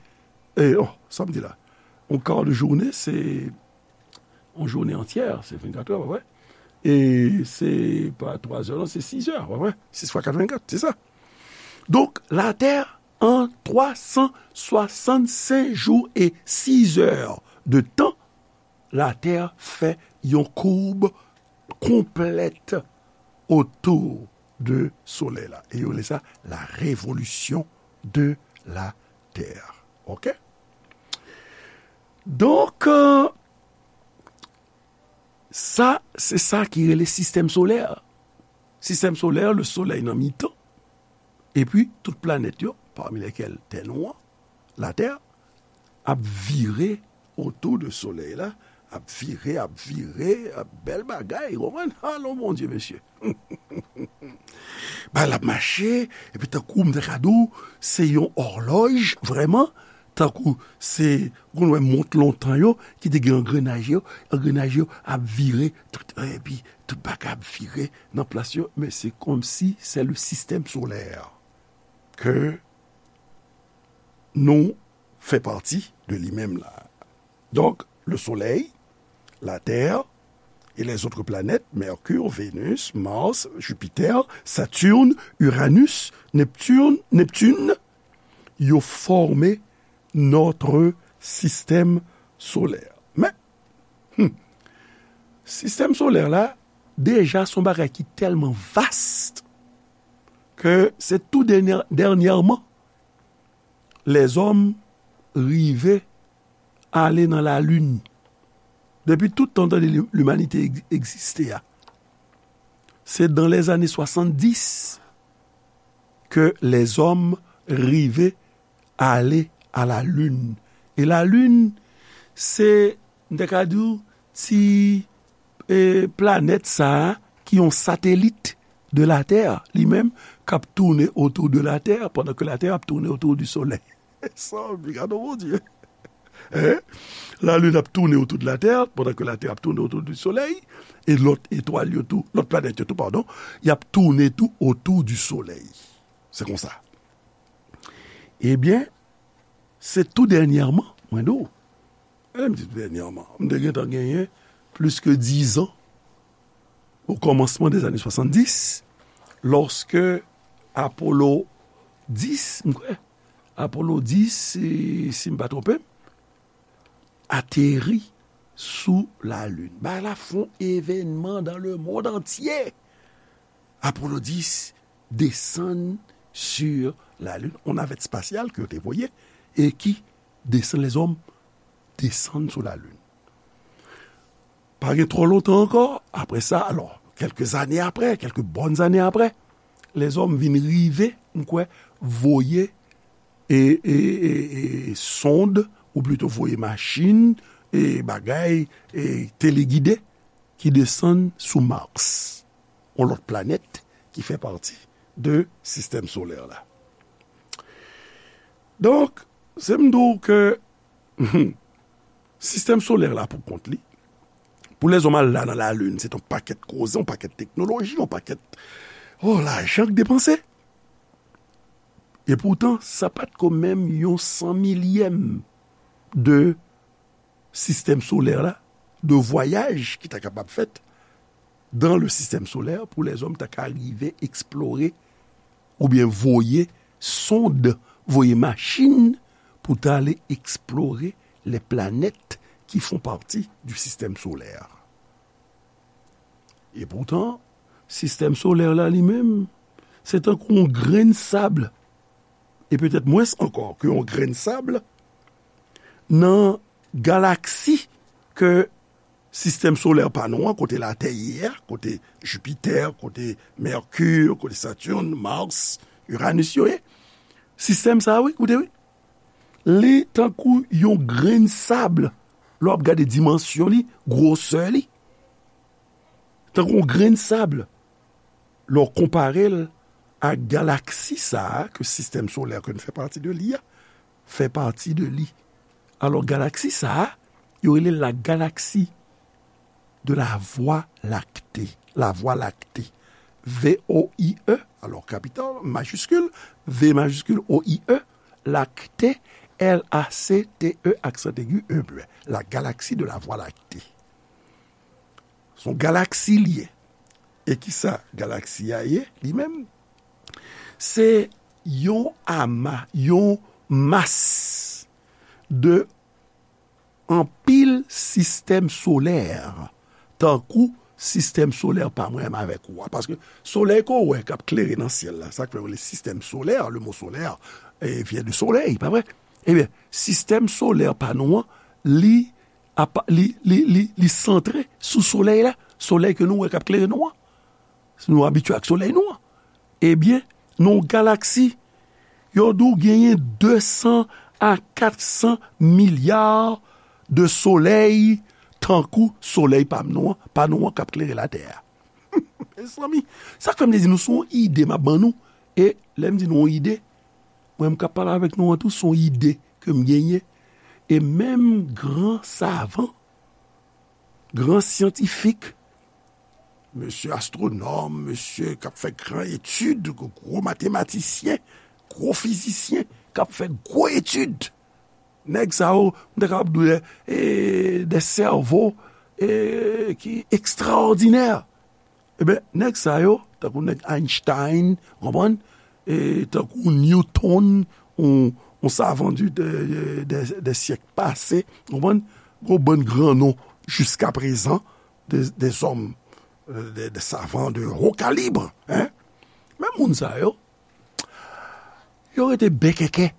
e, oh, sa m di la? Yon ka de jounen, se yon jounen antyè, se vennkat è, pa vre? E se pa twa è, non, se sis è, pa vre? Sis fwa kat, vennkat, se sa. Donk, Latè, an twa san swasannsenk jou e sis è de tan, Latè fè yon koub konplèt otou de Solèy la. E yo rele sa la révolution de la Terre. Oke? Donk, euh, sa, se sa ki rele sistèm solè. Sistèm solè, le Soleil nan mitan, epi tout planèt yo, parmi lesquelles Tè nou an, Latè, ap vire otou de Solèy la, ap vire, ap vire, ap bèl bagay, ou konprann? Alo, Bondye, mesye. Bagay la ap mache, epi tankou m ta ka di w, se yon òlòj, vrèman, tankou se, ou konn wè mont lontan yo, ki te gen angrenaj yo, angrenaj yo ap vire, tout, epi tout bagay ap vire nan plas yo, men se kòmsi se le système solaire ke nou fè pati de li menm la. Donk, le Soleil, la Terre et les autres planètes, Mercure, Vénus, Mars, Jupiter, Saturne, Uranus, Neptune, Neptune, yo fòme notre système solaire. Men, hmm, sistèm solè la, deja se yon bagay ki tèlman vast ke se tou dènyè-, dènyèman lèzòm rive ale nan lalin. Depi tout tan tande li-, limanite eg-, egziste a, se dans les années soixante-dix ke lèzòm rive ale a lalin. E lalin, se, m te ka di w, ti, e, planèt sa a, ki yon satelit de la Terre, li menm, k ap tounen otou de la Terre, pandan ke la Terre ap tounen otou di Solèy. Sa, gade Bondye. Hein? Lalin ap tounen otou de la Terre, pandan ke la Terre ap tounen otou di Solèy, e lòt etwal yo tou, lòt planèt yo tou, padon, y ap tounen tou otou di Solèy. Se konsa. Ebyen, se tou dènyèman, mwen di w, e lè m di tou dènyèman, m te gentan genyen plis ke dizan, o kòmansman dèzane swasanndis, lòske Apollo dis, m kwè, Apollo dis, si, si m pa twonpe m, ateri sou Lalin. Bagay la fè yon evènman dans le monde entier. Apollo dis desann sur la Lune, yon navèt espasyal ke yo te voye e ki desann, lèzòm desann sou Lalin. Pa gen twò lontan ankò, apre sa, alò, kèlke zane apre, kèlke bòn zane apre, lèzòm vin rive m kwè, voye e, e, e, e, sonde, ou plito voye machin, e bagay, e telegide ki desann sou Mars, yon lòt planèt ki fè pati de sistèm solè la. Donk, se m di w ke sistèm solè la pou kont li, pou lèzòm al la nan lalin, se t yon pakèt koze, yon pakèt teknoloji, yon pakèt, oh, lajan k depanse. E poutan, sa pa t ko menm yon san milyèm de sistèm solè la, de vwayaj ki ta kapab fèt dans le système solaire pou lèzòm ta ka rive eksplore oubyen voye sonde, voye machin pou ta ale eksplore les planètes qui font partie du système solaire. E poutan, sistèm solè la li menm, se tankou yon grenn sab, e petèt mwens ankò ke yon grenn sab, nan galaksi ke sistèm solè pa nou an, kote Latè ye a, kote Jipitè, kote Mèkir, kote Saturn, Mars, Uranus yo ye. Sistèm sa a, wi, koute, wi. Li tankou yon grenn sab, lè w ap gade dimansyon li, gwosè li. Tankou yon grenn sab, lè w konpare l ak galaksi sa a, ke sistèm solè ke nou fè pati de li a, fè pati de li. Alò, galaksi sa a, yo rele l la galaksi de la Voie lactée. La Voie lactée. V O I E, alò kapital, majiskil, V majiskil, O I E, lactée, L A C T E, aksan egi, E muet. La galaksi de la Voie lactée. Se yon galaksi li ye. E ki sa galaksi a ye, li menm? Se yon ama, yon mas de anpil sistèm solè, tankou sistèm solè pa mwen menm avèk ou a. Paske solèy ke w wè k ap klere nan syèl la, sa k fè yo rele sistèm solè, le mot solaire, eh, vient de soleil, pa vre? Ebyen, sistèm solè pa nou an, li, apa, li, li, li, li santre sou solèy la, solèy ke nou wè k ap klere nou an. Si nou abitye ak solèy nou an. Ebyen, nan yon galaksi, yo di w genyen de san a kat san milya de solèy, tankou solèy pa nou an, pa nou an k ap klere Latè a. Mezanmi, sa k fè m te di nou se yon ide m ap ban nou. E lè m di nou yon ide, mwen m k ap pale avèk nou an tou, se yon ide ke m genyen. E menm gran savan, gran syantifik, mesye astwonòm, mesye k ap fè gran etid, gwo matematisyen, gwo fizisyen, k ap fè gwo etid. Nèg sa yo, m ta kapab di w, e, de sèvo, e, ki ekstraòdinè. Ebyen, nèg sa yo, tankou nèg Einstein, w konprann? E tankou Newton, yon, yon savan di, de, de, de, de syèk pase, w konprann? Gon bann gran non jiskaprezan, de, de zòm, de, de savan de ho kalib, hein? Men moun sa yo, yo rete bèkèkè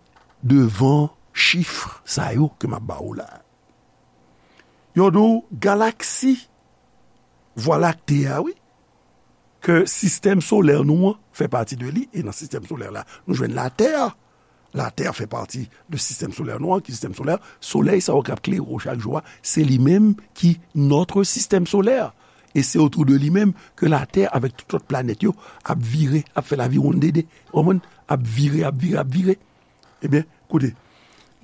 devan chif sa yo ke m ap ba ou la. Yo di w galaksi Vwa Lakte a, wi, ke sistèm solè nou an fè pati de li, e nan sistèm solè la, nou jwenn Latè. Latè fè pati de sistèm solè nou an, ki sistèm solè, solèy sa yo k ap klere w chak jou a, se li menm ki notre système solaire. E se otou de li menm ke Latè avèk tout lòt planèt yo ap vire, ap fè laviwonndede, w konprann? Ap vire, ap vire, ap vire. Ebyen, koute,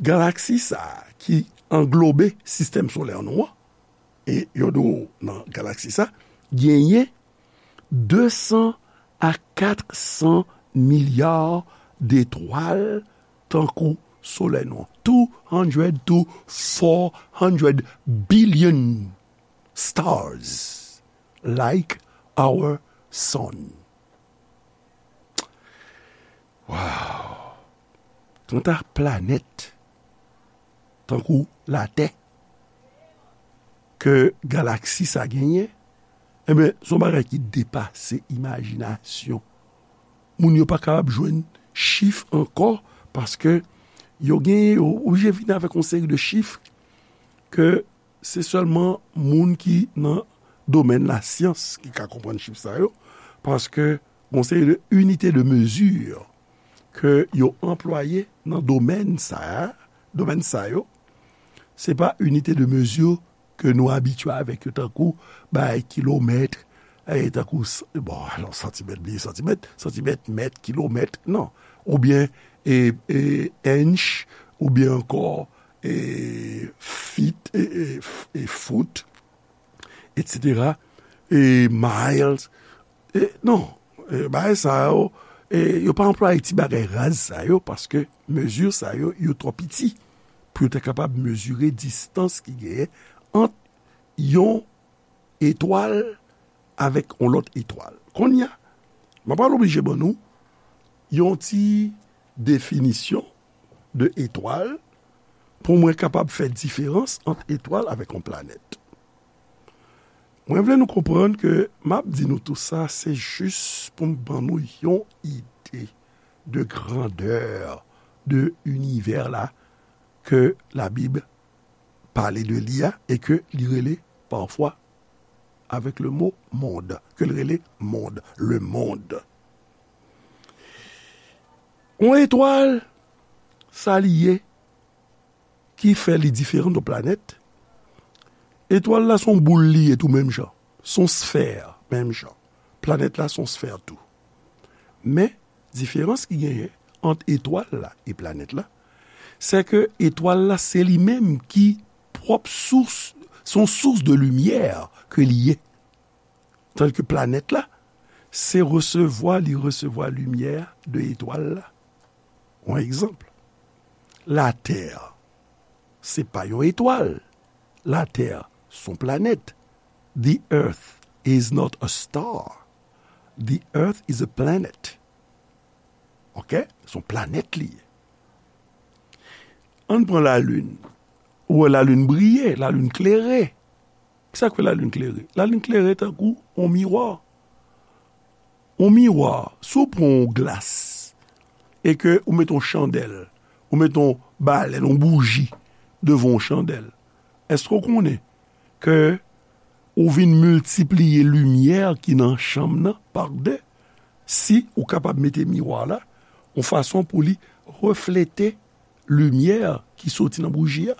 galaksi sa a ki anglobe sistèm solè nou an, e yo di w nan galaksi sa, genyen de san a kat san milya detwal tankou solèy nou an. Two hundred to four hundred billion stars like our sun. Wow! Kanta planèt tankou Latè ke galaksi sa genyen, enben, se yon bagay ki depase imajinasyon. Moun yo pa kapab jwenn chif ankò, paske yo genyen, yo oblije vin avèk yon seri de chif ke se sèlman moun ki nan domèn lasyans ki ka konprann chif sa yo, paske gon seri de inite de mezi ke yo anplwaye nan domèn sa a, domèn sa yo, se pa inite de mezi ke nou abitye avèk yo, tankou bay kilomèt, e, tankou s-, bon, alò, santimèt, bliye santimèt, santimèt, mèt, kilomèt, non. Oubyen, e, e, inch, oubyen ankò, e, feet, e, e, f-, e, foot, etsetera, e, miles. E, non, e, bagay sa yo, e, yo pa anplwaye ti bagay raz sa yo, paske mezi sa yo, yo twò piti pou yo ta kapab mezire distans ki genyen ant yon etwal avèk yon lòt etwal. Kounye a, m ap al oblije ban nou yon ti definisyon de etwal pou mwen kapab fè diferans ant etwal avèk yon planèt. Mwen vle nou konprann ke m ap di nou tou sa, se jis pou m ban nou yon ide de grandè de inivè la ke Labib pale de li a e ke li rele pafwa avèk le mo mond, ke li rele mond, le monde. Yon etwal, sa li ye ki fè li diferan de planèt? Etwal la se yon boul li ye tou menm jan. Se yon sfè menm jan. Planèt la se yon sfè tou. Men, diferans ki genyen ant etwal la e planèt la, se ke etwal la se li menm ki pwòp sous, se yon sous de limyè ke li ye. Tandis ke planèt la, se resevwa, li resevwa limyè de etwal la. Yon egzanp, Latè, se pa yon etwal. Latè, se yon planèt. The earth is not a star. The earth is a planet. Ok? Se yon planèt li ye. Ann pran lalin. Ou wè lalin briye, lalin klere. Kisa k fè lalin klere? Lalin klere tankou yon miwa. Yon miwa, si w pran yon glas e ke ou mete yon chandèl, ou mete yon balèn, yon bouji devan yon chandèl, èske w konnen ke ou vin miltipliye limyè ki nan chanm nan pa de? Si ou kapab mete miwa la yon fason pou li reflete limyè ki soti nan bouji a,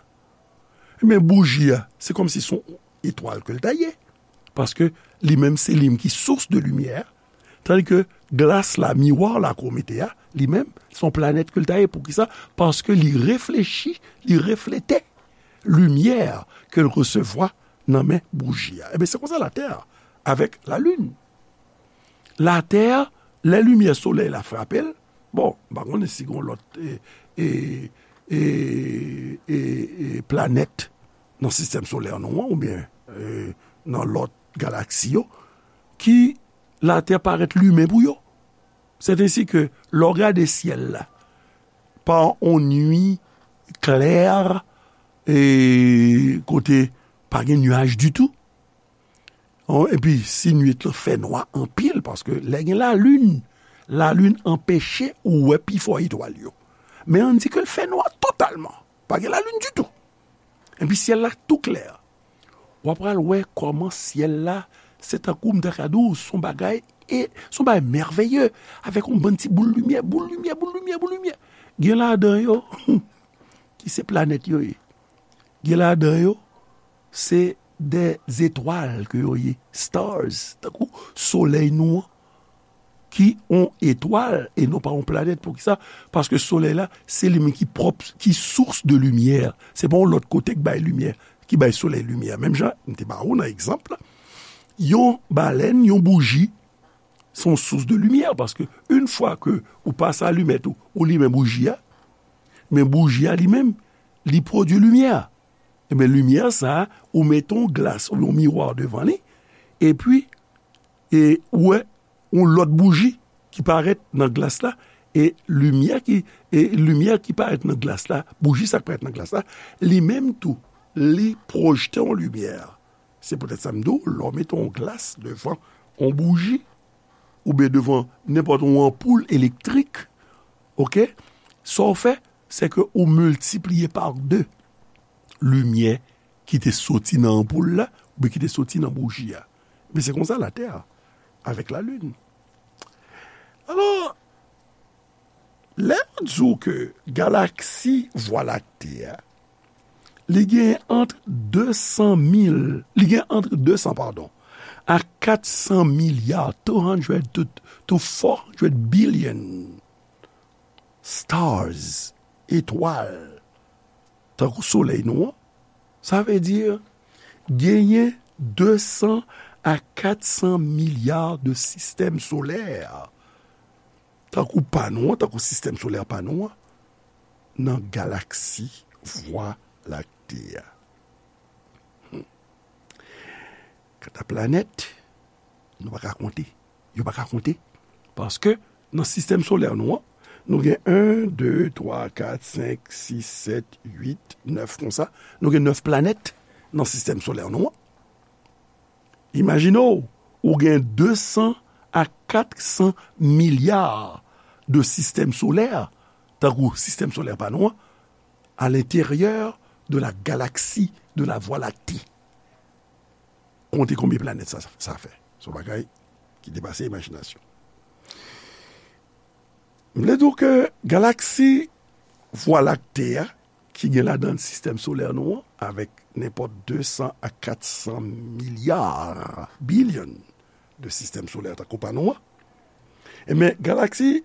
men bouji a, se kòmsi se yon etwal ke l ta ye. Paske li menm se li menm ki sous de limyè, tandi ke glas la, miwa la ke w mete a, li menm, se yon planèt ke l ta ye. Poukisa? Paske li reflechi, li reflete limyè ke l resevwa nan men bouji a. Ebyen, se konsa Latè a, avèk Lalin. Latè, lè limyè solèy la frape l, bon, m pa konnen si gen lòt, e, e, e, e, e, planèt nan sistèm solè nou an, oubyen, e, nan lòt galaksi yo, ki Latè parèt limen pou yo. Sètensi ke lè w gade syèl la, pa yon nwi klè, e, kote pa gen nyaj ditou. Epi, si nwit lan fè nwa anpil, paske lè gen lalin, lalin anpeche ou wè pifò etwal yo. Men ann di ke l fè nwa totalman. Pa gen lalin ditou. Epi syèl la tou klè. W ap pral wè kòman syèl la, se tankou m ta ka di w, se yon bagay, e, se yon bagay mèveye, avèk yon bann ti boul limyè, boul limyè, boul limyè, boul limyè. Gen ladan yo, ki se planèt yo ye. Gen ladan yo, se de zetwal ke yo ye, stars, tankou solèy nou an, ki yon etwal e non pa yon planèt. Poukisa? Paske solèy la, se li menm ki pwòp, ki sous de limyè. Se pa yon lòt kote k bay limyè, ki bay solèy limyè. Menm jan, m te ba ou nan egzanp la, yon balèn, yon bouji, se yon sous de limyè. Paske yon fwa ke ou pase alimèt ou, ou limen bouji a, men bouji a li menm, li pwodui limyè. Ebyen, limyè sa a, ou mete yon glas oubyen yon miwa devan li, epi, e, ou wè yon lòt bouji ki parèt nan glas la, e limyè ki, e limyè ki parèt nan glas la, bouji sa k parèt nan glas la, li menm tou, li pwojte yon limyè. Se poutèt sa m di w, lè w mete yon glas devan yon bouji, oubyen devan nenpòt yon anpoul elektrik, oke, sa w fè, se ke ou miltipliye pa de limyè ki te soti nan anpoul la, oubyen ki te soti nan bouji a. Men se konsa Latè a, avèk Lalin. Alò, Lè yo di w ke galaksi Vwa Lakte a, li gen ant de san mil, li gen ant de san, padon, a kat san milya, two hundred to, to four hundred billion stars, etwal, tankou solèy nou an, sa vle di genyen de san a kat san milya de sistèm solè, tankou pa nou an, tankou sistèm solè pa nou an, nan galaksi Vwa Lakte a. Hmm. Kanta planèt, nou pa ka konte. Yo pa ka konte. Paske nan sistèm solè nou an, nou gen en, de, twa, kat, senk, sis, sèt, uit, nèf konsa. Nou gen nèf planèt nan sistèm solè nou an. Imajine w, ou gen de san a kat san milya de sistèm solè, tankou sistèm solè pa nou an, à l'intérieur de la galaxie de la Voie lactée. Konte konbyen planèt sa, sa fè. Se yon bagay ki depase imajinasyon. M vle di w ke galaksi Vwa Lakte a, ki gen ladan l sistèm solè nou an, avèk nenpòt de san a kat san milya, bilyon de sistèm solè tankou pa nou an, ebyen, galaksi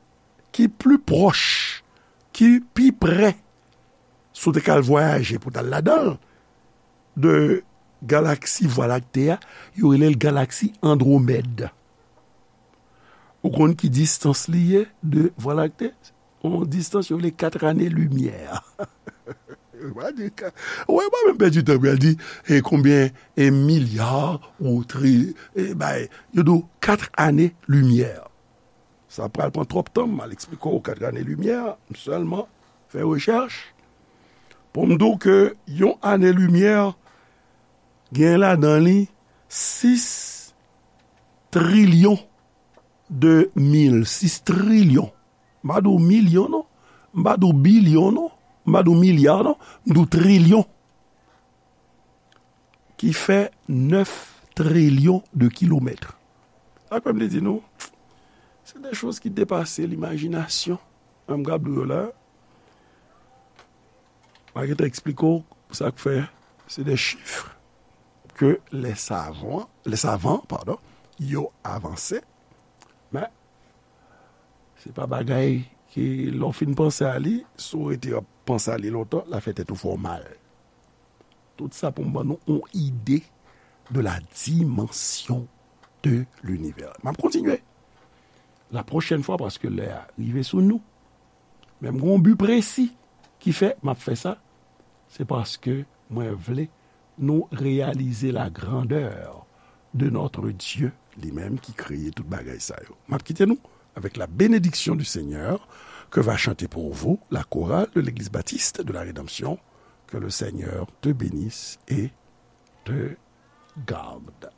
ki pli pwòch, ki pi pre, si w te ka al vwayaje pou w t al ladan l, de galaksi Vwa Lakte a, yo rele l galaksi Andwomèd. Ou konn ki distans li ye de Vwa Lakte? Yon distans yo rele kat ane limyè. Ou pa di ka-, wè, mwen menm pèdi tan pou al di, e konbyen, e milya, ou tri, e bay, yo di w kat ane limyè. Sa pral pran twòp tan, m al eksplike w kat ane limyè, m sèlman fè rechèch pou m di w ke yon ane limyè gen ladan li sis trilyon de mil, sis trilyon. M pa di w milyon non, m pa di w bilyon non, m pa di w milya non, m di w trilyon. Ki fè nèf trilyon de kilomèt. Sa k fè m te di nou, se de choz ki depase limajinasyon. Menm gad yo la, m a gentan eksplike w sa k fè se de chif ke lè savan, lè savan, padon, yo avanse, men se pa bagay ke lè w fin panse a li, si w rete ap panse a li lontan, l a fè tèt ou fè w mal. Tout sa pou m ban nou yon ide de la dimension de l'univers. M ap kontinye la pwochèn fwa paske lè a rive sou nou. Men m gen yon bi presi ki fè m ap fè sa. Se paske mwen vle nou reyalize la grandeur de notre Dieu, li menm ki kreye tout bagay sa yo. M ap kite nou avec la bénédiction du Seigneur que va chanter pour vous la chorale de l'Église Baptiste de la Rédemption. Que le Seigneur te bénisse et te garde.